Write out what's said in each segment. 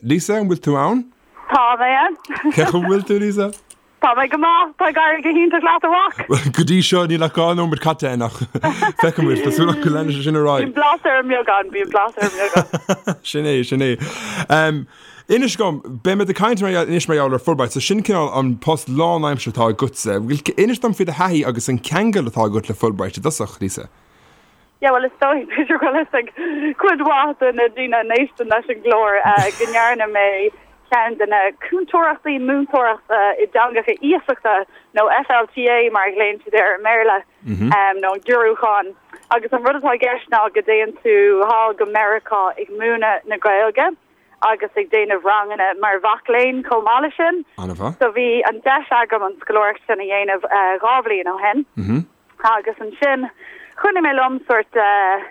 Lisa, an bhfuil tú ann? Tá mé ann. Cén chaoi a bhfuil tú, Lisa? Tá mé go maith. Tá ag éirí go hiontach leat, a mhac. Bhuel, go dtí seo níl ach 2 nóiméad caite againn ach feicfidh muid. Tá súil agam go leanfaidh sé sin ar aghaidh. Bíonn blas ar an mbeagán, bíonn blas ar an mbeagán. Sin é, sin é. Inis dom, beidh muid ag caint mar gheall, anois mar gheall ar Fulbright, so sin cineál an post lánaimseartha atá agatsa. Inis dom faoi do thaithí agus an ceangal atá agat le Fulbright i dtosach, Lisa. Yeah, bhuel, is dóigh, b'fhéidir go bhfuil fhios ag cuid mhaith de na daoine a n-éisteann leis an gclár go ndearna mé ceann de na cúntóireachtaí múinteoireachta i dteangacha iasachta, nó FLTA mar a ghlaonn siad air i mBéarla, nó an giorrúchán. Agus an rud atá i gceist ná go dtéann tú thall go Meiriceá ag múineadh na Gaeilge agus ag déanamh ranganna mar mhac léinn chomh maith leis sin. An-mhaith. So bhí an deis agam an scoláireacht sin a dhéanamh 2 bhliain ó shin. Agus ansin choinnigh mé liom sórt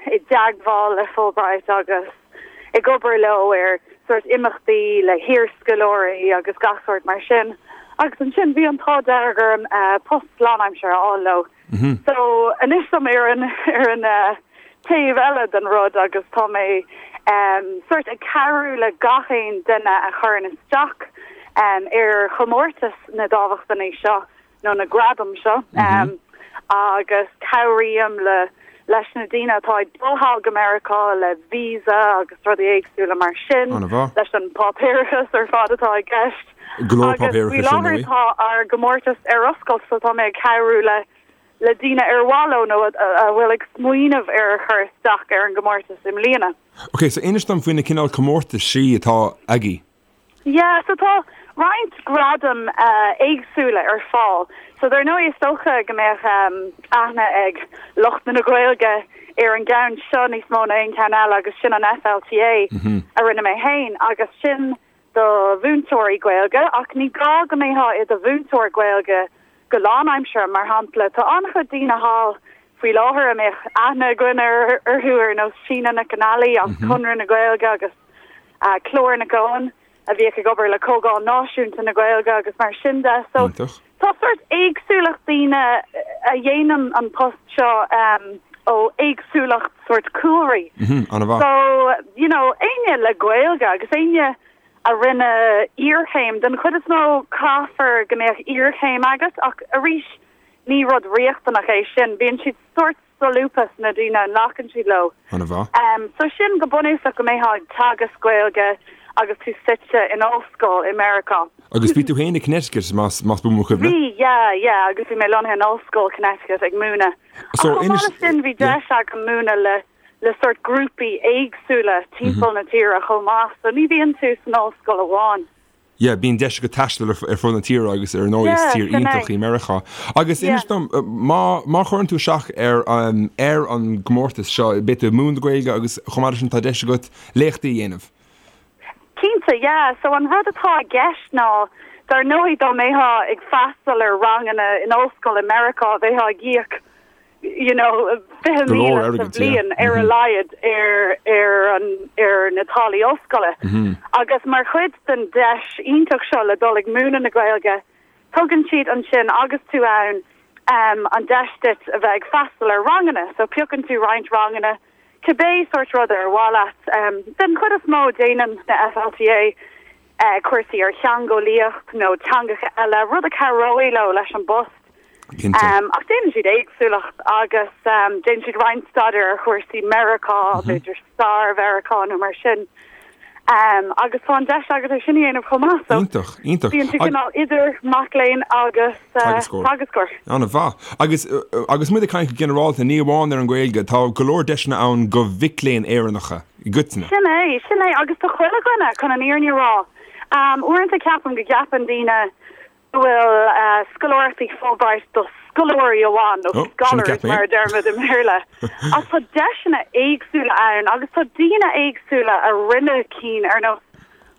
i dteagmháil le Fulbright agus ag obair leo ar sórt imeachtaí le hiarscoláirí agus gach sórt mar sin. Agus ansin bhí an t-ádh dearg orm post lánaimseartha a fháil leo. So anois tá mé ar an ar an taobh eile den rud agus tá mé sórt ag cabhrú le gach aon duine a chuireann isteach ar chomórtas na dámhachtainí seo. nó na gradaim seo agus cabhraím le leis na daoine atá ag dul thall go Meiriceá le visa agus rudaí éagsúla mar sin, leis an páipéarachas ar fad atá i gceist. Go leor páipéarachais ar ndóigh. Agus faoi láthair tá ár gcomórtas ar oscailt so tá mé ag cabhrú le le daoine ar mhaith leo nó a bhfuil ag smaoineamh ar chur isteach ar an gcomórtas i mbliana. Ok, so inis dom faoi na cineál comórtaisí atá agaibh. Yeah, so tá roinnt gradaim éagsúla ar fáil. So dar ndóigh is dócha go mbeadh aithne ag lucht na Gaeilge ar an gceann seo níos mó ná aon cheann eile agus sin an FLTA a rinne mé féin agus sin do mhúinteoirí Gaeilge ach ní gá go mbeifeá i do mhúinteoir Gaeilge go lánaimseartha. Mar shampla, tá an-chuid daoine thall faoi láthair a mbeadh aithne againn orthu ar nós Síne Nic an Ailí as Conradh na Gaeilge agus Clár Nic Eoin, a bhíodh ag obair le Comhdháil Náisiúnta na Gaeilge agus mar sin de. So tá sórt éagsúlacht daoine a dhéanann an post seo ó éagsúlacht sórt cúlraí. So, you know, éinne le Gaeilge agus éinne a rinne iarchéim, den chuid is mó caithfear go mbeadh iarchéim agat ach arís ní rud riachtanach é sin. Bíonn siad sórt solúbtha sna daoine a nglacann siad leo. An-mhaith. So sin go bunúsach go mbeifeá ag teagasc Gaeilge agus tú suite in ollscoil i Meiriceá. Agus bhí tú féin i Connecticut, más más buan mo chuimhne? Bhí, yeah, yeah, agus bhí mé lonnaithe in Ollscoil Connecticut ag múineadh. Ach So chomh maith inis, leis sin bhí yeah. deis agam múineadh le le sórt grúpaí éagsúla timpeall na tíre chomh maith, so ní bhíonn tú san ollscoil amháin. Yeah, bíonn deis agat taisteal ar fud na tíre agus ar ndóigh is Yeah, tír sin é. iontach í Meiriceá. Agus Yeah. inis dom, má, má chuireann tú isteach ar an, ar an gcomórtas seo, beidh tú ag múineadh na Gaeilge agus chomh maith leis sin tá deis agat léachtaí a dhéanamh. Cinnte, yeah. So an rud atá i gceist ná, dar ndóigh dá mbeifeá ag freastal ar ranganna in ollscoil i Meiriceá, bheifeá ag íoc you know, Go leor 20,000 sa airgid, yeah. bhliain ar a laghad ar ar an ar na táillí ollscoile. Agus mar chuid den deis iontach seo le dul ag múineadh na Gaeilge, tugann siad ansin agus tú ann an deis duit a bheith ag freastal ar ranganna. So piocann tú roinnt ranganna, cibé sórt rud ar mhaith leat. Den chuid is mó déanann na FLTA cúrsaí ar theangeolaíocht nó teangacha eile, rud a chabhróidh leo leis an bpost. Cinnte. Ach déanann siad éagsúlacht agus déanann siad roinnt staidéar ar chúrsaí Meiriceá, b'fhéidir stair Mheiriceá nó mar sin. Agus tá an deis agat é sin a dhéanamh chomh maith. So Iontach, iontach. bíonn tú cineál idir mac léinn agus Teagascóir. teagascóir. An-mhaith. Agus agus muid ag caint go ginearálta, ní amháin ar an Ghaeilge, tá go leor deiseanna ann do mhic léinn Éireannacha i gcoitinne. Sin é, sin é. Agus do chuile dhuine, chun an fhírinne a rá. Uaireanta ceapaim go gceapann daoine go bhfuil scoláireachtaí Fulbright do scoláirí amháin, nó scholars mar a deirimid i mBéarla. Ach tá deiseanna éagsúla ann agus tá daoine éagsúla a rinne cinn ar nós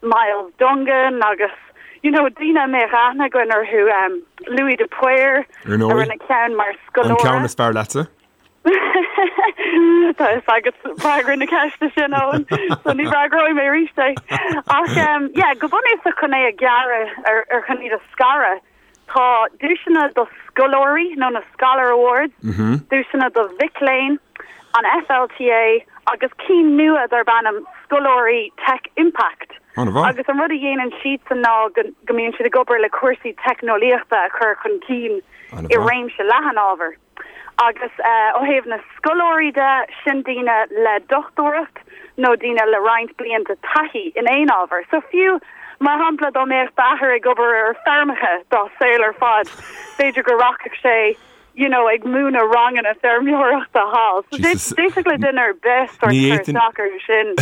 Myles Dungan agus you know daoine a mbeadh aithne againn orthu, Louis de Paor a rinne ceann mar scoláire. An ceann is fearr leatsa? Tá fhios agat freagra na ceiste sin, Eoin, so ní fhreagróidh mé arís é. Ach yeah, go bunúsach chun é a ghearradh ar ar chun iad a scaradh, tá duaiseanna do scoláirí nó na Scholar Awards, duaiseanna do mhic léinn, an FLTA agus cinn nua darb ainm Scoláirí Tech Impact. An-mhaith. Agus an rud a dhéanann siadsan ná go go mbíonn siad ag obair le cúrsaí teicneolaíochta a chur chun cinn i réimse leathan ábhar. Agus ó thaobh na scoláirí de, sin daoine le dochtúireacht nó daoine le roinnt blianta taithí in aon ábhar. So fiú, mar shampla, dá mbeadh d'athair ag obair ar feirmeacha dá saol ar fad, b'fhéidir go rachadh sé you know, ag múineadh ranganna feirmeoireachta thall. So d'fhéadfadh le duine ar bith sort cur isteach orthu sin.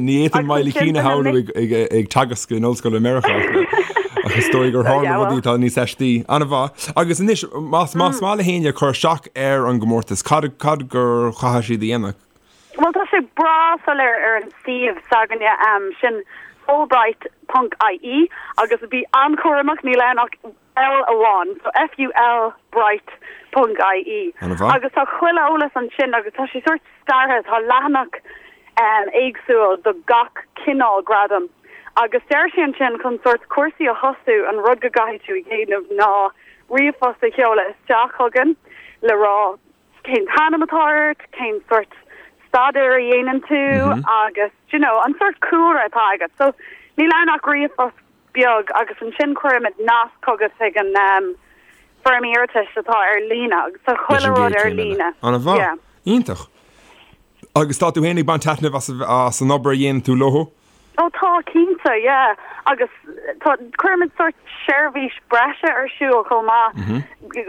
Ní fhéadfainn Miley Keane a shamhlú ag teagasc in ollscoil i Meiriceá ach is dóigh gur tharla rudaí atá níos aistí. An-mhaith. Agus anois, más maith le héinne cur isteach ar an gcomórtas, cad cad gur chaithfidh siad a dhéanamh? Bhuel, tá sé breá soiléir ar an suíomh s'againne, sin Fulbright ponc ie, agus bí an-chúramach, níl ann ach L amháin, so FUL Bright ponc IE. Agus tá chuile eolas ansin agus tá sé sórt scartha, tá leathanach éagsúil do gach cineál gradam. Agus deir sé ansin chun sórt cúrsaí a thosú an rud go gcaithfidh tú a dhéanamh ná ríomhphost a sheoladh isteach chugainn le rá cén t-ainm atá ort, cén sórt staidéir a dhéanann tú agus, you know, an sórt cúlra atá agat. So níl ann ach ríomhphost beag agus ansin cuirimid nasc chugat chuig an foirm iarratais atá ar líne agus tá chuile rud ar líne. An-mhaith. Yeah. Iontach. Agus tá tú féin ag baint taitneamh as as an obair a dhéanann tú leo? Ó tá, cinnte, yeah. Agus tá, cuirimid sórt seirbhís breise ar siúl chomh maith.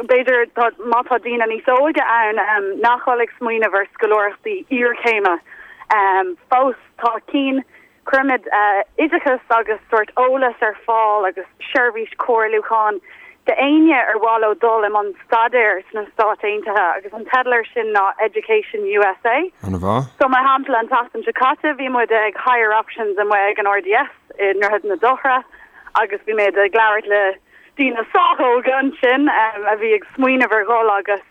B'fhéidir tá, má tá daoine níos óige ann nach bhfuil ag smaoineamh ar scoláireachtaí iarchéime fós, tá cinn Cuirimid oideachas agus sórt eolas ar fáil agus seirbhís comhairliúcháin d'éinne ar mhaith leo dul i mbun staidéir sna Stáit Aontaithe agus an teideal air sin ná Education USA. An-mhaith. So mar shampla an tseachtain seo caite bhí muid ag Higher Options amuigh ag an RDS i nDroichead na Dothra agus bhí muid ag labhairt le daoine sách óga ansin a bhí ag smaoineamh ar dhul agus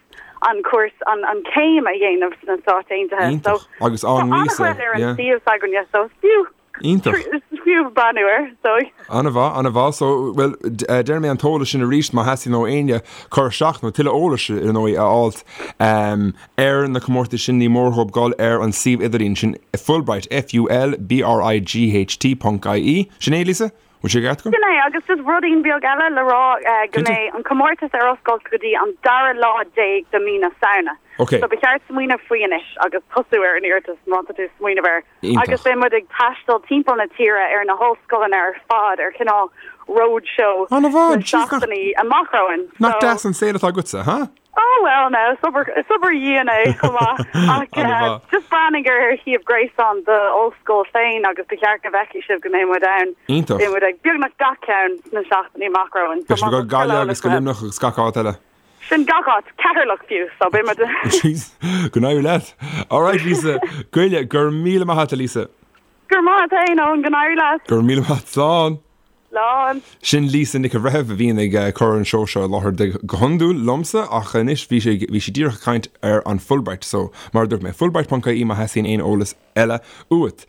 an cúrsa, an an céim a dhéanamh sna Stáit Aontaithe. So Iontach. Agus tá an víosa, an-chuid ar an yeah. suíomh s'againne so is fiú Iontach. is fiú breathnú air so. An-mhaith, an-mhaith. So, bhuel, déarfaidh mé an t-eolas sin arís má theastaíonn ó éinne cur isteach nó tuilleadh eolais ar ndóigh a fháilt ar na comórtais sin ní mór dhóibh dul ar an suíomh idirlín sin Fulbright, F-U-L-B-R-I-G-H-T ponc I-E. Sin é, Lisa? Bhfuil sé ceart agam? Sin é, agus just rudaín beag eile le rá, go mbeidh an comórtas ar oscailt go dtí an dara lá déag de mí na Samhna. Ok. So ba cheart smaoineamh faoi anois agus tosú ar an iarratas má tá tú ag smaoineamh air. Iontach. Agus beidh muid ag taisteal timpeall na tíre ar na hollscoileanna ar fad ar chineál roadshow An-mhaith, sna jeez, nach, seachtainí amach romhainn. nach deas an saol atá agatsa, huh? Oh well no, is obair, is obair dhian é chomh maith ach An-mhaith. just breathnaigh ar shuíomh gréasáin d'ollscoil féin agus ba cheart go bhfeicfidh sibh go mbeidh muid ann. Iontach. Beidh muid ag beagnach gach ceann sna seachtainí amach romhainn. Beidh sibh ag dul go Gaillimh agus go Luimneach agus gach áit eile. Sin gach áit, Ceatharlach fiú, so beidh muid. Jeez, go n-éirí leat. Alright Lisa, Goille, go raibh míle maith agat a Lisa. Go raibh maith agat féin Eoin, go n-éirí leat. Go raibh míle maith agat, slán. Slán. Sin Lisa Nic an Bhreithimh a bhíonn ag cur an seó seo i láthair de go hiondúil liomsa ach anois bhí sí bhí sí díreach ag caint ar an Fulbright so mar a dúirt mé fulbright.ie má theastaíonn aon eolas eile uait.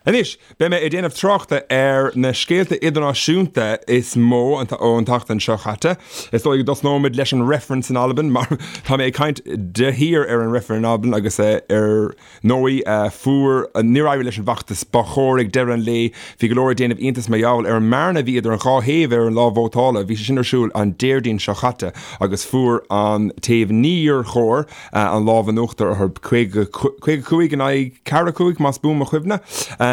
Anois beidh mé ag déanamh tráchta ar na scéalta idirnáisiúnta is mó ón tseachtain seo chaite. Is dóigh go dtosnóimid leis an reifreann san Albain mar tá mé ag caint de shíor ar an reifreann in Albain agus ar ndóigh, fuair, níor éirigh leis an bhfeachtas ba chóir ag deireadh an lae. Bhí go leor ag déanamh iontais mar gheall ar an mbearna a bhí idir an dhá thaobh ar an lá vótála. Bhí sé sin ar siúl an Déardaoin seo chaite agus fuair an taobh níor chóir an lámh in uachtar orthu, 55 in aghaidh 45 más buan mo chuimhne.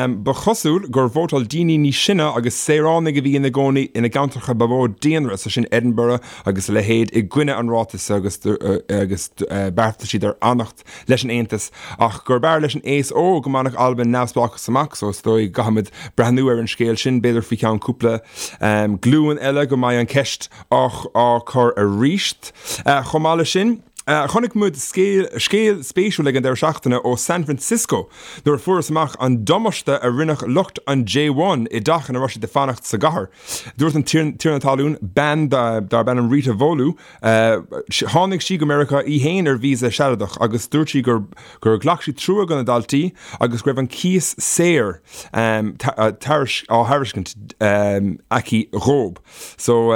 Ba chosúil gur vótáil daoine níos sine agus saoránaigh a bhí ina gcónaí ina gceantracha ba mhó daonra, sé sin Edinburgh agus a leithéid, i gcoinne an ráitis agus agus beartaigh siad ar fhanacht. leis an Aontas ach gurb fhearr leis an aos óg go mbainfeadh Albain neamhspleáchas amach so is dóigh go gcaithfimid breathnú ar an scéal sin, b'fhéidir faoi cheann cúpla glúin eile go mbeidh an ceist á cur arís. Chomh maith leis sin, chonaic muid scéal spéisiúil ag an deireadh seachtaine ó San Francisco nuair a fuarthas amach an damáiste a rinne lucht an J1 i dteach ina raibh siad ag fanacht sa gcathair. Dúirt an tiarna talún, bean darb ainm Rita Volu, Tháinig sí go Meiriceá í fhéin ar víosa sealadach agus dúirt sí gur gur ghlac sí trua do na daltaí agus go raibh an cíos saor á thairiscint aici dhóib. So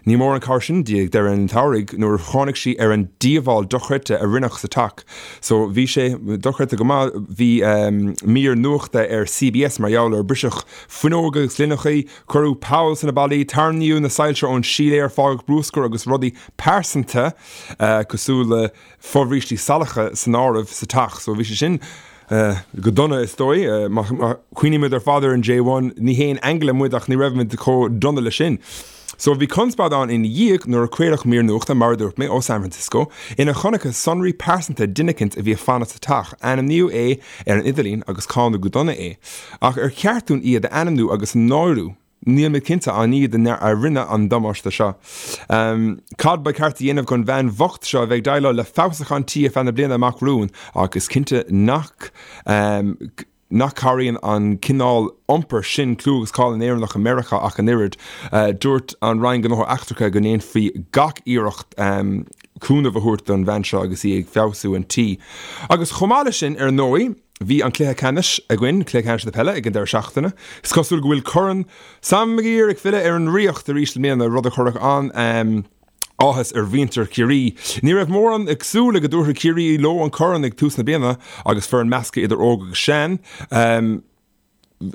ní mór an cabhair sin di ag deireadh an tsamhraidh nuair a tháinig sí ar an díobháil. dhíobháil dochreidte a rinneadh sa teach. So bhí sé dochreidte go maith, bhí mír nuachta ar CBS mar gheall air, briseadh fuinneoga agus gloineachaí, cuireadh poll sna ballaí, tarraingíodh na soilse ón síléar, fágadh bruscar agus rudaí pearsanta cosúil le fobhrístí salacha san áireamh sa teach. So bhí sé sin go dona is dóigh. Má chuimhnímid ar fad ar an J1, ní haon aingle muid ach ní raibh muid chomh dona le sin. So bhí conspóid ann ina dhiaidh nuair a craoladh mír nuachta, mar a dúirt mé, ó San Francisco, ina chonacthas sonraí pearsanta duine eicínt a bhí ag fanacht sa teach. Ainmníodh é ar an idirlíon agus cáineadh go dona é. Ach ar cheart dúinn iad a ainmniú agus a náiriú? Níl mé cinnte an iad a rinne an damáiste seo. Cad ba cheart a dhéanamh don bhean bhocht seo a bheidh ag déileáil le feabhsúchán tí ar feadh na bliana amach romhainn ach is cinnte nach nach cabhraíonn an cineál iompair sin clú agus cáil na nÉireannach i Meiriceá ach an oiread. Dúirt an Roinn Gnóthaí Eachtracha go ndéanfaí gach iarracht cúnamh a thabhairt don bhean seo agus í ag feabhsú an tí. Agus chomh maith leis sin, ar ndóigh, Bhí an cluiche ceannais againn, cluiche ceannais na peile, ag an deireadh seachtaine. Is cosúil go bhfuil Corn Sam Maguire ag filleadh ar an Ríocht arís i mbliana, rud a chuirfeadh an-áthas ar mhuintir Chiarraí. Ní raibh mórán ag súil le go dtabharfadh Ciarraí leo an corn ag tús na bliana agus foireann measctha idir óg agus sean.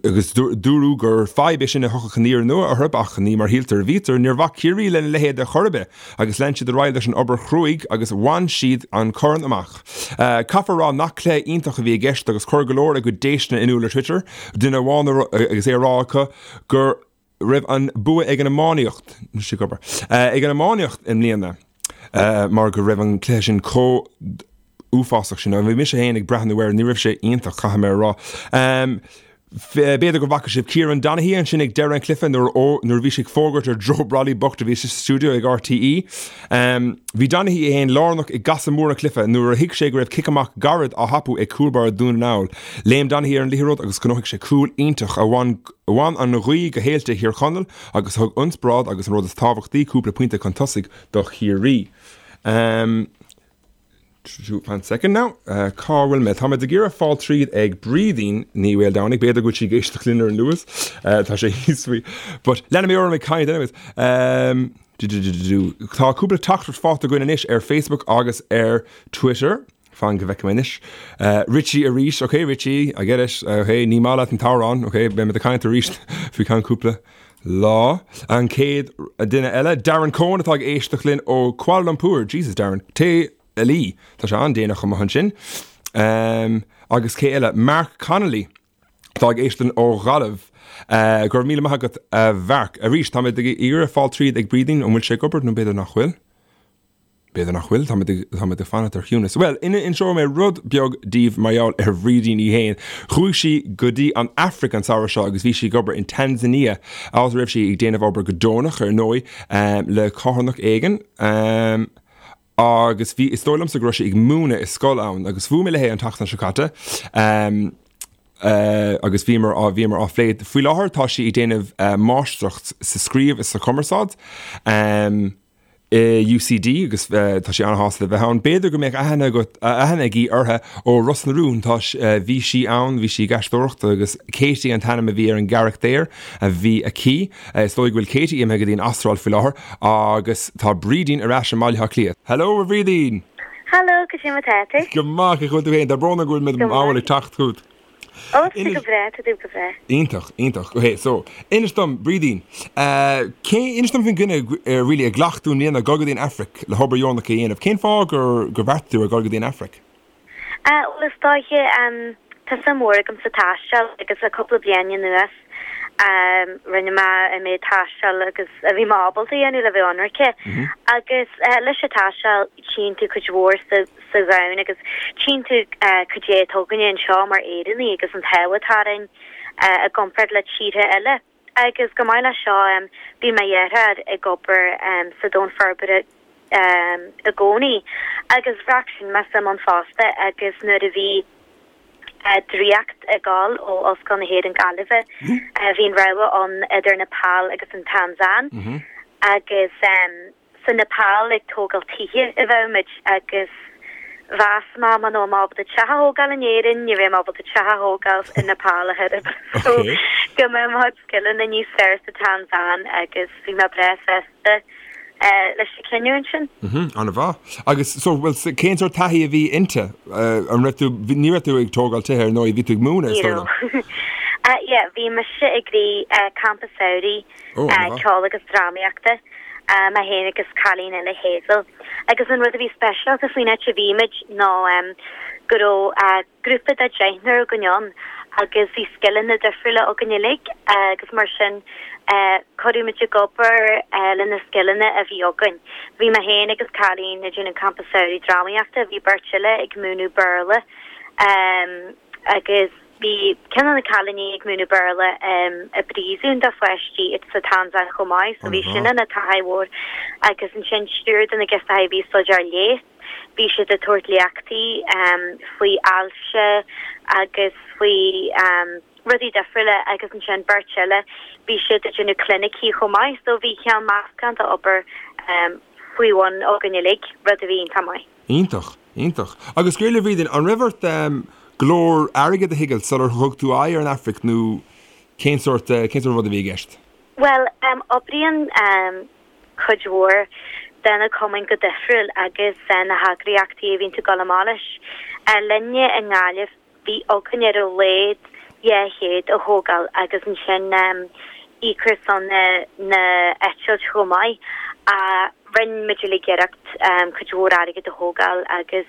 Agus dúradh gur fadhb é sin a thiocfadh aniar aduaidh orthu, ach ní mar shíltear a bhítear. Níor bhac Ciarraí lena leithéid ar chor ar bith agus lean siad ar aghaidh leis an obair chruaidh agus bhain siad an corn amach. Caithfear a rá nach cluiche iontach a bhí i gceist agus chuir go leor a gcuid déistine in iúl ar Twitter, duine amháin agus é a rá acu gur raibh an bua ag an iománaíocht, ag an iománaíocht i mbliana mar go raibh an cluiche sin chomh uafásach sin. Bhí mise féin ag breathnú air, ní raibh sé iontach, caithfidh mé a rá. B'fhéidir go bhfaca sibh Kieran Donaghy ansin ag deireadh an chluiche nuair nuair a bhí sé ag fógairt ar Joe Brolly bocht a bhí sa stiúideo ag RTÉ. Bhí Donaghy é féin lárnach i gcasadh mór an chluiche nuair a thuig sé go raibh cic amach gairid á thapú ag cúl báire Dhún na nGall. Léim Donaghy ar an liathróid agus ghnóthaigh sé cúl iontach a bhain Bhain an ghaoth go héilte Thír Chonaill agus thug ionspráid agus an rud is tábhachtaí, cúpla pointe chun tosaigh do Chiarraí. Fan second now. Cá bhfuil mé? Tá mé ag iarraidh fáil tríd ag Brídín Ní Mhaoldomhnaigh. B'fhéidir go bhfuil sí ag éisteacht linn ar an Luas. Tá sé thíos faoi. But leanfaidh mé orm ag caint anyways. Tá cúpla teachtaireacht faighte againn anois ar Facebook agus ar Twitter. Fan go bhfeicfidh mé anois. Richie arís, ok Richie, I get it, ok, ní maith leat an t-amhrán, ok, beidh muid ag caint arís faoi ceann cúpla lá. An chéad duine eile, Darren Cohen atá ag éisteacht linn ó Kuala Lumpur, Jesus Darren, téigh a luí, tá sé an-déanach amuigh ansin. Agus cé eile? Mark Connolly atá ag éisteacht linn ó Ghaillimh. Go raibh míle maith agat a Mhark. Arís, tá mé ag iarraidh fáil tríd ag Brídín, an bhfuil sé ag obair nó b'fhéidir nach bhfuil? B'fhéidir nach bhfuil, táimid ag, táimid ag fanacht ar chiúnas. Bhuel, inseoidh mé rud beag daoibh mar gheall ar Bhrídín í fhéin. Chuaigh sí go dtí an Afraic an samhradh seo agus bhí sí ag obair in Tanzania, áit a raibh sí ag déanamh obair go deonach, ar ndóigh, le carthanacht éigin. Agus bhí, is dóigh liomsa go raibh sí ag múineadh i scoil ann agus bhuail mé léi an tseachtain seo caite. Agus bhíomar á, bhíomar á phlé. Faoi láthair tá sí ag déanamh máistreacht sa scríobh is sa chumarsáid. I UCD agus tá sí an-shásta le bheith ann. B'fhéidir go mbeadh aithne agat, aithne agaibh uirthi ó Ros na Rún. Tá, bhí sí ann, bhí sí ag aisteoireacht agus Katie an t-ainm a bhí ar an gcarachtar a bhí aici. Is dóigh go bhfuil Katie imithe go dtí an Astráil faoi láthair agus tá Brídín ar ais i mBaile Átha Cliath. Hello a Bhrídín! Hello, cad é mar atá tú? Go maith, cén chaoi a bhfuil tú féin? Tá brón orm go bhfuil mé mall ag teacht chugat. Ó, tá go breá, tá tú go breá. Iontach, iontach. Ok, so, inis dom, Brídín, cé, inis dom faoin gcinneadh, really, a ghlac tú i mbliana dul go dtí an Afraic le hobair dheonach a dhéanamh. Cén fáth gur, gur bheartaigh tú ar dhul go dtí an Afraic? Bhuel, is dóiche, tá suim mhór agam sa taisteal agus le cúpla bliain anuas, rinne mé an méid taistil agus a bhí mé ábalta a dhéanamh le bheith ionraice. Agus leis an taisteal, tchíonn tú cuid mhór sa, sa dhomhan agus tchíonn tú cad é atá againne anseo mar Éireannaigh agus an t-ádh atá orainn i gcomparáid le tíortha eile. Agus chomh maith leis seo bhí mo dheartháir ag obair sa domhan forbartha i gcónaí agus bhraith sin mé suim ann fosta agus nuair a bhí draíocht ag dul ó Ollscoil na hÉireann Gaillimhe bhí an rogha ann idir Nepal agus an Tansáin agus Sa Nepal ag tógáil tithe a bheadh muid agus mheas mé muna raibh mé ábalta teach a thógáil in Éirinn, ní bheidh mé ábalta teach a thógáil i Nepal a thuilleadh. So go mbeadh mo chuid scileanna níos fearr sa Tansáin agus bhí mé breá sásta. leis an cinniúint sin. Mhm, an-mhaith. Agus so, bhuel, cén sórt taithí a bhí inti? An raibh tú, ní raibh tú ag tógáil tithe ar ndóigh, bhí tú ag múineadh, is dóigh liom. Yeah, bhí mise ag rith campa samhraidh ceoil agus drámaíochta, mé féin agus cailín eile, Hazel. Agus an rud a bhí speisialta faoin áit a bhí muid ná go raibh grúpa de deichniúr againn ann agus bhí scileanna difriúla againn uilig agus mar sin cuireadh muid ag obair le na scileanna a bhí againn. Bhí mé féin agus cailín ag déanamh campa samhraidh drámaíochta, bhí beirt eile ag múineadh Béarla agus bhí ceann de na cailíní ag múineadh Béarla i bpríosún do pháistí sa Tansáin chomh maith so bhí sin ina taithí mhór agus ansin triúr de na girseachaí a bhí ag staidéar leighis. Bhí siad ag tabhairt léachtaí faoi ailse agus faoi rudaí difriúla agus ansin beirt eile bhí siad ag déanamh clinicí chomh maith so bhí cineál meascán d'obair faoi bhun againn uilig, rud a bhí iontach maith. Iontach, iontach. Agus go raibh Bhrídín, an raibh ort go leor airgid a thigeáil sular thug tú aghaidh ar an Afraic nó cén sórt, cén sórt rud a bhí i gceist? Bhuel, oibríonn cuid mhór de na cumainn go difriúil agus na heagraíochtaí a bhíonn tú ag dul amach leis. Linne i nGaillimh bhí againn ar a laghad 200 a thógáil agus ansin íoc ar son na eitilt chomh maith. Rinne muid uilig iarracht cuid mhór airgid a thógáil agus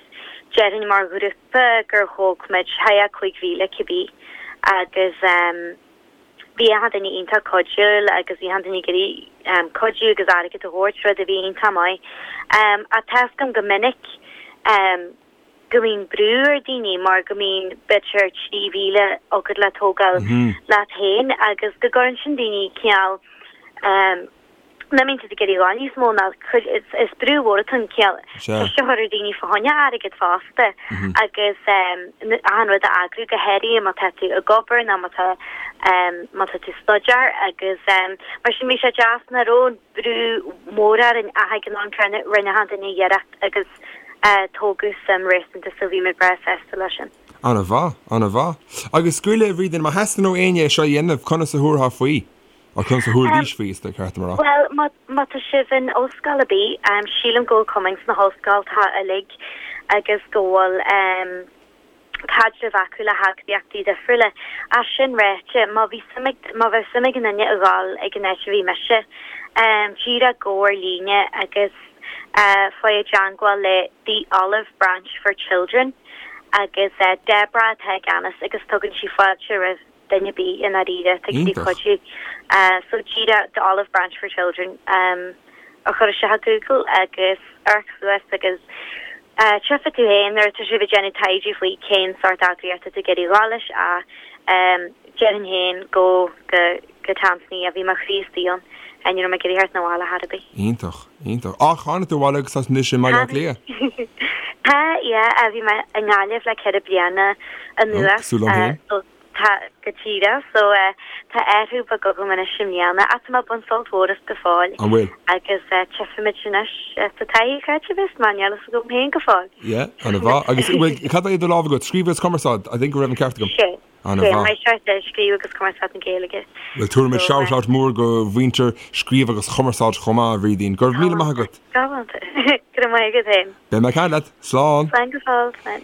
déarfainn mar ghrúpa gur thóg muid thart fá 5,000 cibé agus Bhí achan duine iontach cuidiúil agus bhí achan duine ag iarraidh cuidiú agus airgead a thabhairt, rud a bhí iontach maith. Ach tá 'fhios agam go minic go mbíonn brú ar daoine mar go mbíonn b'fhéidir 3,000 agat le tógáil leat féin agus go gcuireann sin daoine cineál nach mbíonn siad ag iarraidh a dhul níos mó ná cuid, is brú mhór atá ann cineál ceist a chur ar daoine fá choinne airgead fosta agus achan rud a eagrú go háirithe má tá tú ag obair nó má tá má tá tú ag staidéar agus mar sin bhí sé deas nach raibh an brú mór orainn ach ag an am céanna rinne achan duine iarracht agus tógadh suim réasúnta so bhí muid breá sásta leis sin. Ana-mhaith, ana-mhaith. Agus go raibh Bhrídín, má theastaíonn ó éinne é seo a dhéanamh, conas a thabharfá faoi? Ó conas a thabharfaidís faoi, is ceart dom a rá. Bhuel, má, má tá sibh in ollscoil ar bith, sílim go bhfuil cumainn sna hollscoltacha uilig agus go bhfuil caidreamh acu le heagraíochtaí difriúla. Ach sin ráite, má bhí suim ag, má bheadh suim ag aon duine a dhul ag an áit a bhí mise, díreach gabh ar líne agus faigh i dteangmháil le The Olive Branch for Children agus Deborah atá i gceannas agus tugann sí fáilte roimh duine ar bith i ndáiríre atá ag iarraidh cuidiú. So díreach The Olive Branch for Children a chur isteach i Google agus amharc suas agus tchífidh tú féin nuair atá sibh ag déanamh taighde faoi cén sórt eagraíocht atá tú ag iarraidh a dhul leis ach déarfainn féin go go go Tansaínia, bhí mo chroí istigh ann, ní raibh mé ag iarraidh theacht 'na bhaile chor ar bith. Iontach, iontach. Ach tháinig tú abhaile agus tá tú anois i mBaile Átha Cliath. Tá, yeah, bhí mé i nGaillimh le 4 bliana anuas. Cosúil liom féin. So tá, go díreach, so tá athrú beag agam anois i mbliana ach tá mé ag baint sult mhór as go fóill. An bhfuil? Agus tchífimid anois sa taithí cá háit a bheas mé, níl fhios agam féin go fóill. Yeah, ana-mhaith. Agus bhfuil, cad é i do lámh agat? Scríobh agus cumarsáid, I think go raibh an ceart agam. Sé. Ana-mhaith. Scríobh agus Cumarsáid na Gaeilge. Bhuel, tabharfaimid shout out mór go mhuintir Scríobh agus Chumarsáid chomh maith, a Bhrídín. Go raibh míle maith agat. Galánta. Go raibh maith agat féin. Beidh mé ag caint leat. Slán. Slán go fóill. Slán.